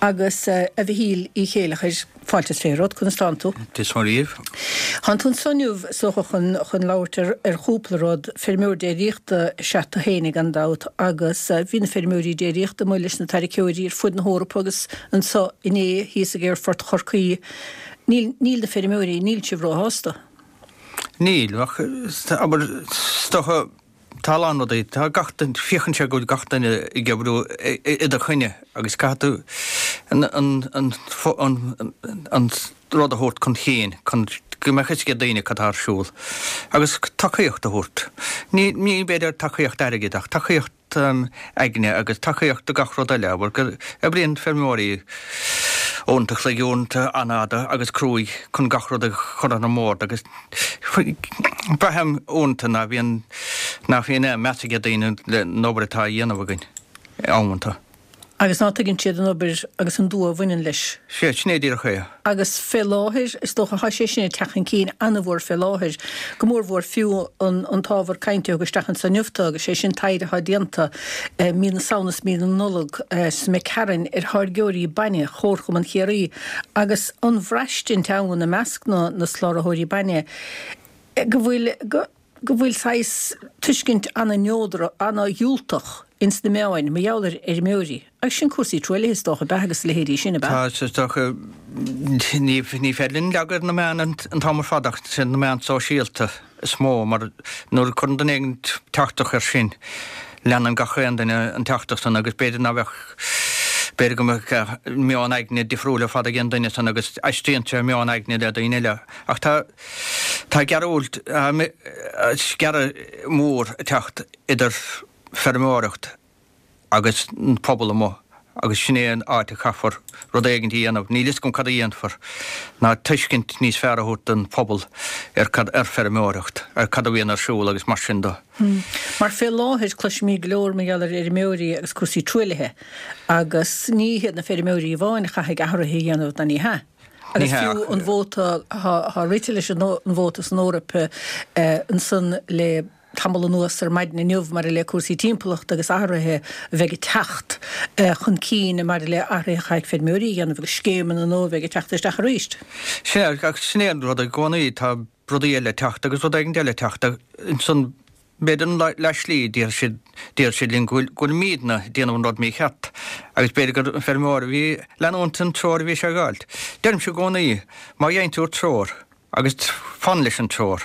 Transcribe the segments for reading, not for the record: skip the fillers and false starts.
Agus a Mhichíl Uí Chéilleachair, fáilte is fé romhat, conas tánn tú? Dia is Muire dhaoibh. Tánn tú anso inniu, is dócha, chun chun labhairt ar ar chúpla rud. Feirmeoir déiríochta is ea tú féinig gan dabht agus bhí na feirmeoirí déiríochta amuigh leis na táirgeoirí ar fud na hEorpa agus anso inné thíos ag Aerfort Chorcaí. Níl níl na feirmeoirí, níl sibh róshásta? Níl, ach abair, is dócha, Tá a lán rudaí, tá gach duine, féachann sé go bhfuil gach duine ag oibriú i do choinne agus caithfidh tú an an an rud a thabhairt chun cinn chun go mbeadh fhios ag daoine cad tá ar siúl agus tacaíocht a thabhairt. Ní ní b'fhéidir tacaíocht airgid ach tacaíocht aigne agus tacaíocht do gach rud eile, abair go oibríonn feirmeoirí uaireanta an chloig, uaireanta an-fhada agus cruaidh chun gach rud a chur ar an mbord agus Braithim uaireanta ná bhíonn, nach bhíonn aon meas ag daoine an obair atá á dhéanamh againn, amanta. Agus ná tuigeann siad an obair agus an dua a bhaineann leis. Sea, sin é díreach é. Agus fé láthair, is dócha, thá sé sin ag teacht chun cinn an-mhór fé láthair, go mórmhór fiú an an t-ábhar cainte a thug isteach anso inniu tú, agus sé sin taighde athá déanta mí na Samhna is mí na Nollag sa Mhic Cearainn ar tháirgeoirí bainne Chomharchumann Chiarraí agus an bhraistint ann i measc na na soláthróirí bainne go bhfuil go go bhfuil saghas tuiscint ana-neodrach, ana-dhiúltach ins na meáin mar gheall ar fheirmeoirí. Agus sin cúrsaí truaillithe is dócha, ab ea, agus a leithéidí sin, ab ea? Tá, is dócha, ní ní féidir linn leagadh ar na meáin an t-am ar fad ach sin na meáin sóisialta is mó mar nuair a cuireann duine éigin teachtaireacht air sin, leanann gach aon duine an teachtaireacht san agus b'fhéidir ná bheadh, b'fhéidir go mbeadh meon aigne difriúil ar fad ag an duine san agus aistríonn sé meon aigne le daoine eile. Ach tá, tá gearúilt, sciarradh mór ag teacht idir feirmeoireacht agus an pobal amuigh agus sin é an áit a chaithfear rud éigint a dhéanamh, níl fhios agam cad a dhéanfar, ná tuiscint níos fearr a thabhairt don phobal ar cad, ar feirmeoireacht, ar cad a bhíonn ar siúl agus mar sin de. Mar fé láthair cloisimid go leor mar gheall ar fheirmeoirí agus cúrsaí truaillithe agus ní hiad na feirmeoirí amháin a chaithfidh athruithe a dhéanamh ná ní hea. Agus fiú an vóta, thá rite leis an vóta san Eoraip ansan le tamall anuas ar maidin inniu maidir le cúrsaí timpeallachta agus athruithe a bheidh ag teacht chun cinn maidir le athruithe a chaithfidh feirmeoirí a dhéanamh agus scéimeanna nua a bheidh ag teacht isteach arís. Sea, ach sin é an rud i gcónaí, tá rudaí eile ag teacht agus rud éigin eile ag teacht ansan b'fhéidir an leath-slí déarfaidh siad, déarfaidh siad linn go bhfuil, go bhfuilimídne ag déanamh an rud mícheart agus b'fhéidir gur an feirmeoir a bhí ag leanúint an treoir a bhí sé ag fháilt. Deirimse i gcónaí, má gheibheann tú treoir, Agus fan leis an treoir.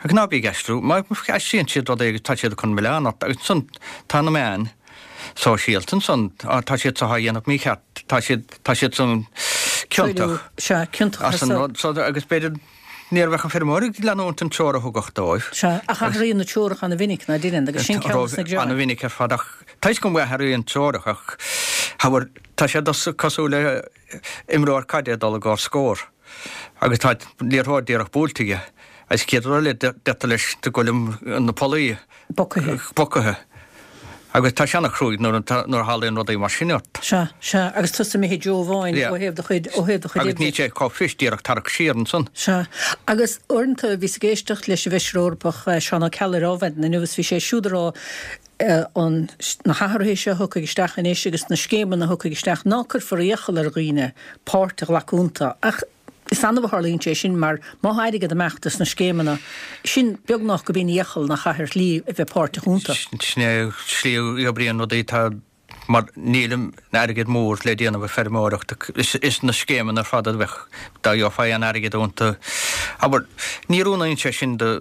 Agus ná bí ag aistriú. Má aistríonn siad rud éigin tá siad ag cur an milleán ort. Agus ansan tá na meáin sóisialta ansan, á tá siad seo á dhéanamh mícheart, tá siad, tá siad san ciontach. Sea, ciontach as an rud so agus b'fhéidir ní bheadh an feirmeoir ag leanúint an treoir a thugadh dóibh. Sea, ach athraíonn na treoracha ana-mhinic, ná deineann, agus sin ceann des na gearáin. Ana-mhinic ar fad ach tá fhios agam go athraíonn treoracha ach abair tá sé cosúil le imreoir caide ag dul i gcomhair scór. agus tá liathróid díreach buailte aige agus chéad rud eile deirtear leis go bhfuil na pollaí Bocaithe. bocaithe agus tá sé ana-chruaidh nuair a nuair a tharlaíonn rudaí mar sin ort. Sea, sea, agus tusa imithe i dtreo amháin Yeah. ó thaobh do chuid, ó thaobh do chuid Agus oibre. níl sé chomh fuirist díreach tarrac siar ansan. Sea, agus uaireanta bhíos ag éisteacht leis an bhFeisire Eorpach Seán Ó Ceallaigh ar Adhmhaidin inniu agus bhí sé siúd ag rá an, na hathruithe seo a thiocfaidh isteach anois agus na scéimeanna a thiocfaidh isteach, ná cuirfear iachall ar dhaoine páirt a ghlacadh iontu. Ach is annamh a tharlaíonn sé sin mar má thá airgead ag imeacht as na scéimeanna sin, beagnach gurb in iachall nach caithfear slí a bheith páirteach iontu. Sin é slí a oibríonn rudaí. Tá, mar níl an airgead mór le déanamh ag feirmeoireacht. Is na scéimeanna ar fad a bheadh, dá gheofá aon airgead iontu. Abair, ní oiriúnaíonn sé sin do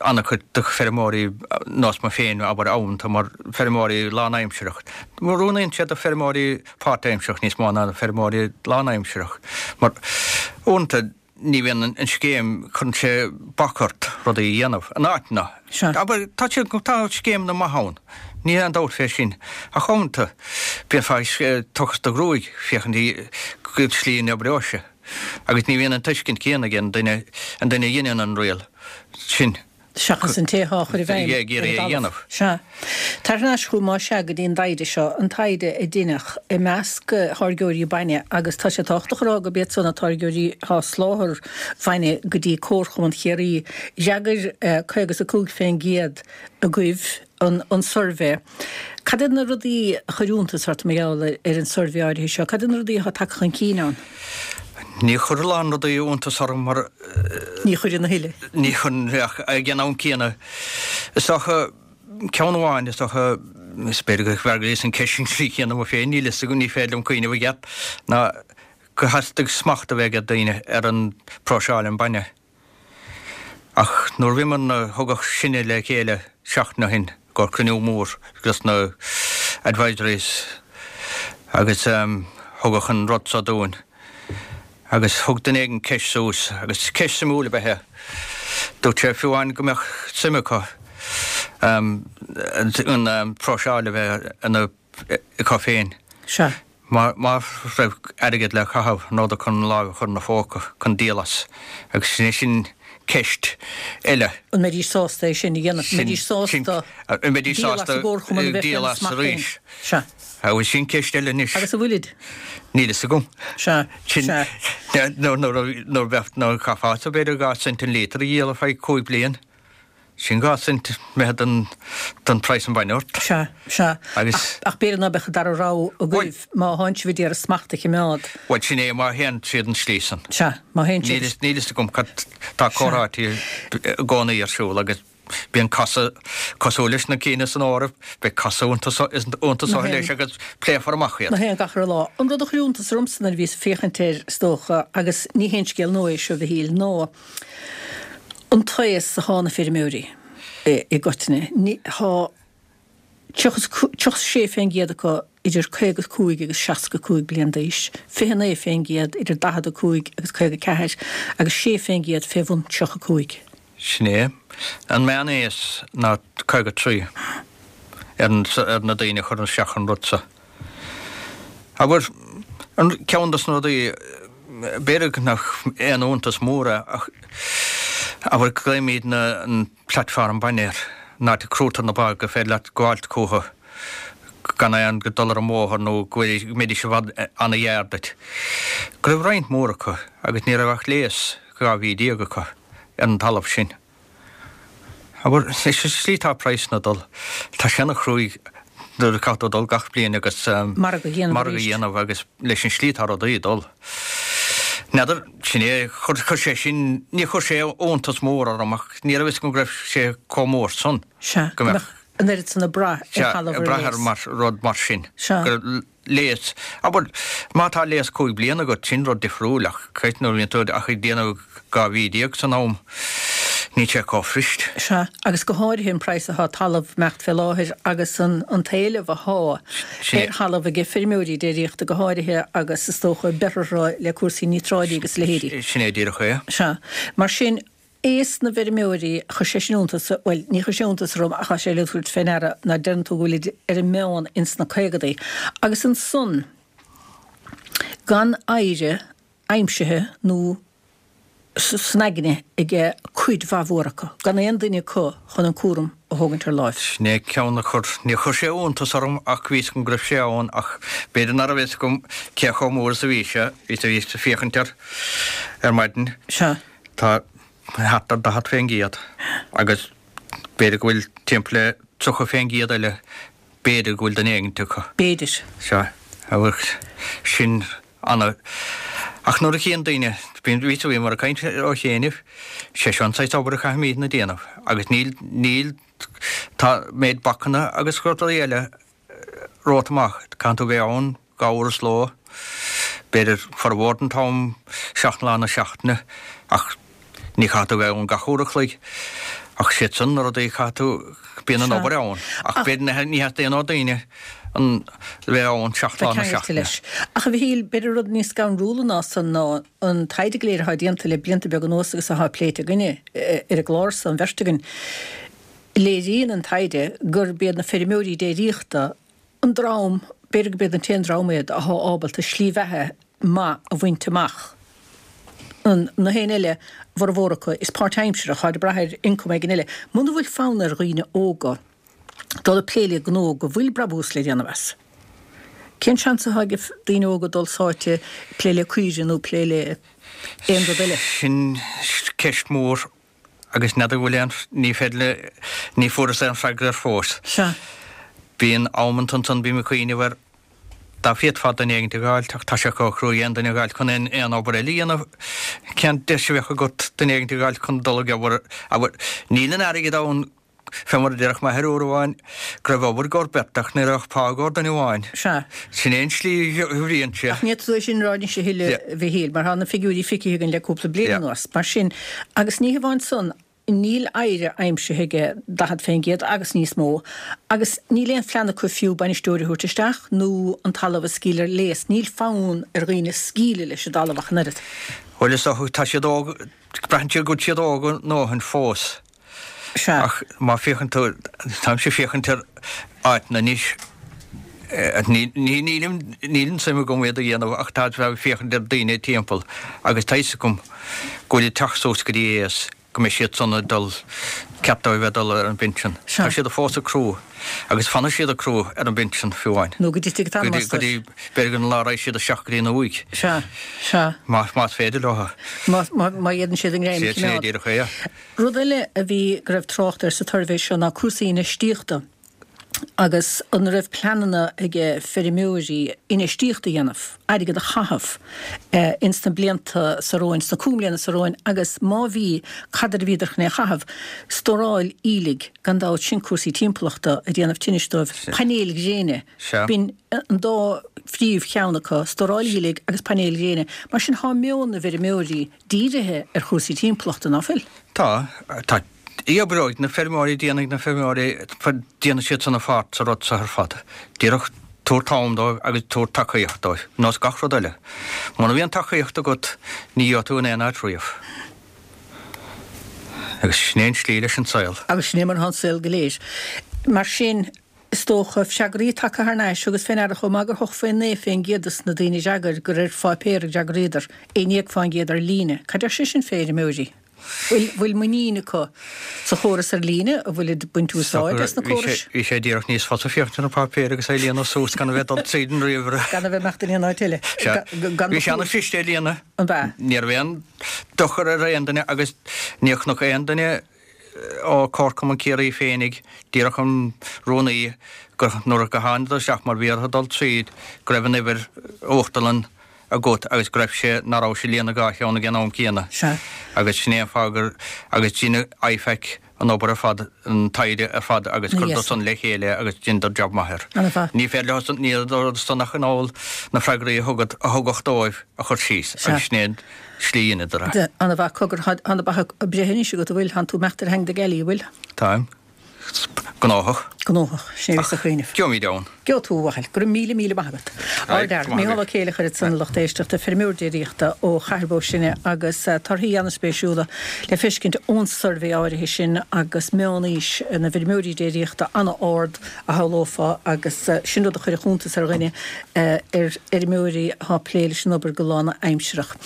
an-chuid de feirmeoirí nós mé féin, abair, amanta mar feirmeoirí lánaimsireach. Oiriúnaíonn sé do feirmeoirí páirtaimsireach níos mó ná do feirmeoirí lánaimsireach. Mar uaireanta ní bhíonn an scéim, cuireann sé bac ort rudaí a dhéanamh in áiteanna. Sea. Abair, tá siad, tá scéimeanna maithe ann, níl aon dabht fé sin, ach uaireanta bíonn ag tochas do ghruaig féachaint cén tslí a n-oibreoidh sé. Agus ní bhíonn an tuiscint céanna ag an duine, an duine a dheineann an riail sin. Seachas an té atá á chur i bhfeidhm ag iarraidh é a dhéanamh. Sea. Tar thar n-ais chugam más ea go dtí an dtaighde seo, an taighde a deineadh i measc tháirgeoirí bainne agus tá sé tábhachtach a rá gurb iad san na táirgeoirí atá ag soláthar bainne go dtí Comharchumann Chiarraí. D'fhreagair 55 fén gcéad agaibh an suirbhé. Cad iad na rudaí a chuir iontas ort mar gheall ar an suirbhé áirithe seo? Cad iad na rudaí atá tagtha chun cinn ann? Ní chuir a lán rudaí iontas orm mar. Ní chuireann a thuilleadh. Ní chuireann ach ag an am céanna is dócha ceann amháin is dócha is b'fhéidir go bhfreagraíos an ceist sin trí chéanna mé féin níl fhios agam ní féidir liom cuimhneamh i gceart ná gur theastaigh smacht a bheith ag daoine ar an próiseáil an bainne. Ach nuair a bhíomar na, thugadh sinne le chéile seachtain ó shin i gcomhair cruinniú mór dos na advisories agus thugadh an rud so dúinn agus thug duine éigin ceist suas agus ceist suimiúil ab ea é. Dúirt sé fiú amháin go mbeadh suim acu an próiseáil a bheith ina acu féin. Sea. Má raibh airgead le caitheamh, an rabhadar chun lámh a chur ina phóca chun díol as? Agus sin é sin ceist eile. An mbeidís sásta é sin a dhéanamh? An mbeidís sásta díol as an gcomharchumann a bheith féna smacht féin? Sea. Agus sin ceist eile anois. Agus an bhfuilid? Níl fhios agam. Sea. Sea. Nuair a bheadh, nuair a chaithfeá, b'fhéidir 2 cent an líotar a dhíol ar feadh 5 bliain. Sin 2 cent imithe den, den praghas an bainne ort. Sea, sea. Agus. Ach b'fhéidir ná beadh an dara rogha agaibh má thánn sibh a d'iarraidh smacht a chimeád. Bhuel, sin é, má théann siad an slí san. Sea, má théann siad. Níl, níl fhios agam cad, tá comhráití i gcónaí ar siúl agus bíonn casadh cosúil leis na cinn san Eoraip, beidh casadh iontu so, iontu so leis agus pléifear amach iad. Ná haon gach re lá. An rud a chuir iontas ormsa nuair a bhíos ag féachaint air, is dócha, agus ní haon scéal nua é seo, a Mhichíl, ná an t-aos athá na feirmeoirí i gcoitinne. Thá 36 fén gcéad acu idir 55 agus 65 bliain d'aois, 29 fén gcéad idir 45 agus 54 agus 6 fén gcéad fé bhun 35. Sin é. An meán-aos ná 53 ar na daoine a chuireann isteach an rud so. Abair, an ceann dos na rudaí, b'fhéidir nach aon iontas mór é ach abair glaoimid na an platform bainne air, an áit a crúitear na ba gur féidir leat gabháilt chucu gan aon dul ar an mbóthar nó go mbeidís i bhfad ana-ghearr duit. Go raibh roinnt mhór acu agus ní raibh ach léas 12 mhí acu ar an talamh sin. Abair, leis an slí atá praghsanna ag dul, tá sé ana chruaidh nuair a caithfidh tú dul gach bliain agus margadh a dhéanamh margadh a dhéanamh agus leis an slí atá rudaí ag dul. N'fheadar, sin é, chuir, chuir sé sin, ní chuir sé iontas mór orm ach ní raibh fhios agam go raibh sé chomh mór san. Sea, go mbeadh an oiread san ag brath ar thalamh ar léas. Ag brath ar mar, rud mar sin. Sea. Go léas. Abair, má tá léas 5 bliana agat, sin rud difriúil, ach creidim nuair a bhíonn tú ach ag déanamh 12 mhí san am, níl sé chomh fuirist. Sea, agus go háirithe an praghas athá talamh ag imeacht fé láthair agus an an t-éileamh athá ar thalamh aige feirmeoirí déiríochta go háirithe agus is dócha beirthe le cúrsaí níotráidí agus a leithéidí. Sin é díreach é. Sea. Mar sin, aos na bhfeirmeoirí, chuir sé sin iontas, bhuel, ní chuir sé iontas orm ach tá sé le tabhairt fé ndeara ná deireann tú go bhfuilid ar an meán ins na caogadaí. Agus ansan, gan oidhre aimsithe nó san aigne aige cuid mhaith mhór acu, gan aon duine acu chun an cúram a thógaint ar láimh. Sin é ceann a chuir, níor chuir sé iontas orm ach bhí 'fhios agam go raibh sé ann ach b'fhéidir ná raibh 'fhios agam cé chomh mór is a bhí sé, bhíos ag féachaint air ar maidin. Sea. Tá thart ar 40% agus b'fhéidir go bhfuil timpeall le 30% eile, b'fhéidir go bhfuil duine éigint acu. B'fhéidir. Sea, agus sin ana. Ach nuair a chíonn daoine, bíonn, bhí, bhíomar ag caint ó chianaibh, sé seo an saghas obair a chaithfimídne a déanamh agus níl, níl, tá méid bacanna agus rudaí eile romhat amach. Caitheann tú bheith ann 2 uair sa ló, b'fhéidir formhór den t-am, 7 lá na seachtaine, ach ní chaithfidh tú bheith ann gach uair a chloig. Ach siad san na rudaí a chaithfidh tú, bíonn an obair ann. Ach b'fhéidir ní theastaíonn ó daoine an bheith ann 7 lá na seachtaine. leis. Ach a Mhichíl, b'fhéidir rud níos scanrúla ná san ná an taighde go léir atá déanta le blianta beaga anuas agus atá pléite againne ar an gclár so, an bheirt againn, Léiríonn an taighde gurb iad na feirmeoirí déiríochta an dream, b'fhéidir gurb iad an t-aon dream iad, athá ábalta slí bheatha maith a bhaint amach. Na héinne eile, a bhformhór acu, is páirtaimseartha, táid ag brath ar ioncam éigin eile. Muna bhfuil fonn ar dhaoine óga dul ag plé le gnó go bhfuil brabús le déanamh as, cén seans atá ag daoine óga dul sáite ag plé le caoirigh nó plé le aon rud eile? Sin ceist mhór agus n'fheadar bhfuil aon, ní féidir le, ní fuaireas aon freagra air fós. Sea. Bíonn amanta ansan, bím ag cuimhneamh ar, dá bhféadfá duine éigint a dh'fháilt, ach tá sé chomh cruaidh aon duine a dh'fháilt chun aon, aon obair eile a dhéanamh. Cén deis a bheadh agat duine éigint a dh'fháilt chun dul ag obair, abair, níl an airgead ann, fé mar a déarfadh m'athair uair amháin, go raibh obair i gcomhair beirt ach ní raibh pá i gcomhair duine amháin. Sea. Sin é an tslí a bhíonn sé. Ach ní fhéadfaidh tú é sin a rá anois a thuilleadh, a Mhichíl, mar tá na figiúirí feicthe againn le cúpla bliain anuas. Mar sin, agus ní hamháin san, Níl oidhre aimsithe aige 40% agus níos mó agus níl aon phlean acu fiú bainisteoir a thabhairt isteach nó an talamh a scaoileadh ar léas. Níl fonn ar dhaoine scaoileadh leis an dtalamh ach an oiread. Bhuel, is dócha, tá siad óg, braitheann siad go bhfuil siad óg a ndóthain fós. Sea. Ach má féachann tú, táimse ag féachaint ar áiteanna anois, nílim, níl an suim agam iad a dhéanamh ach tá ag féachaint ar daoine timpeall agus tá fhios agam go bhfuil ag teacht suas go dtí aos go mbeidh siad san ag dul, ceart dóibh bheith ag dul ar an bpinsean. Tá siad fós ag crú agus fanfaidh siad ag crú ar an bpinsean fiú amháin. Nó go dtitfidh an t-anam astu. Go dtí, b'fhéidir an lá a raghaidh siad isteach go dtí an uaigh. Sea, sea. Más, más féidir leo. Má, má, má fhéadann siad a ngreim a choimeád. Sin é díreach é. Rud eile a bhí, go raibh trácht air sa tsuirbhé seo ná cúrsaí infheistíochta. agus an raibh pleananna ag feirmeoirí infheistíocht a dhéanamh, airgead a chaitheamh ins na blianta seo romhainn, sna cúig mbliana seo romhainn agus má bhí, cad air a bhíodar chun é a chaitheamh? Stóráil aoiligh, gan dabht, sin cúrsaí timpeallachta ag déanamh tinnis dóibh, painéil ghréine, b'in an dá phríomh cheann acu, stóráil aoiligh agus painéil ghréine. Mar sin thá meon na bhfeirmeoirí dírithe ar chúrsaí timpeallachta, ná fuil? Tá, tá. Oibreoidh na feirmeoirí, déanfaidh na feirmeoirí, déanfaidh siad san a pháirt sa rud seo ar fad. Díreach tabhair t-am dóibh agus tabhair tacaíocht dóibh, nós gach rud eile. Muna mbíonn tacaíocht agat, ní gheobhaidh tú in aon áit riamh. Agus sin é an tslí leis an saol. Agus sin é mar atá an saol go léir. Mar sin, is dócha, freagraí tagtha thar n-ais agus fé ndeara chomh maith gur 89% des na daoine a d'fhreagair gur ar pháipéar a d'fhreagraíodar, 11% ar líne. Cad deir sé sin fé fheirmeoirí? Bhfuil muinín acu sa chóras ar líne? An bhfuilid ag baint úsáid as na córais? Bhí sé díreach níos fusa féachaint ar an páipéar agus é a líonadh suas gan a bheith ag dul tríd an ríomhaire. Gan a bheith ag imeacht in aon áit eile. Sea. Bhí sé ana-chliste a líonadh. An b'ea? Ní raibh aon dochar ar aon duine agus níor chonac aon duine ó Comharchumann Ciarraí féinig, díreach an rúnaí, gur nuair a thángadar isteach mar bhí orthu dul tríd go raibh an uimhir uachtarlann agat agus go raibh sé, ná raibh sé ag líonadh dhá cheann ag an am céanna. Sea. Agus sin é an fáth gur, agus dhein IFAC an obair ar fad, an taighde ar fad agus chuireadar san le chéile agus dheineadar jab maith air. Ana-mhaith. Ní féidir leo san, ní raibh san ach in ann na freagraí a thugad, a thugadh dóibh a chur síos agus sin é an slí a dheineadar é. Ana-mhaith. Cogar, tá na beacha ag breith anois agat, an bhfuil? Tánn tú ag imeacht ar theanga na gealaí, an bhfuil? Táim. Gnóthach. Gnóthach. Sin é a bhíos ag cuimhneamh. Gheobhaimid ann. Gheobhaidh tú, a Mhichíl. Go raibh míle míle maith agat. Ardfhear. Mícheál Ó Céileachair ansan a lucht éisteachta, feirmeoir déiríochta ó Chathair Bó Sine agus torthaí an-spéisiúla le feiscint ón suirbhé áirithe sin agus meán-aois na bhfeirmeoirí déiríochta an-ard a shamhlófá agus sin rud a chuirfeadh iontas ar dhuine ar fheirmeoirí atá ag plé leis an obair go lánaimsearach.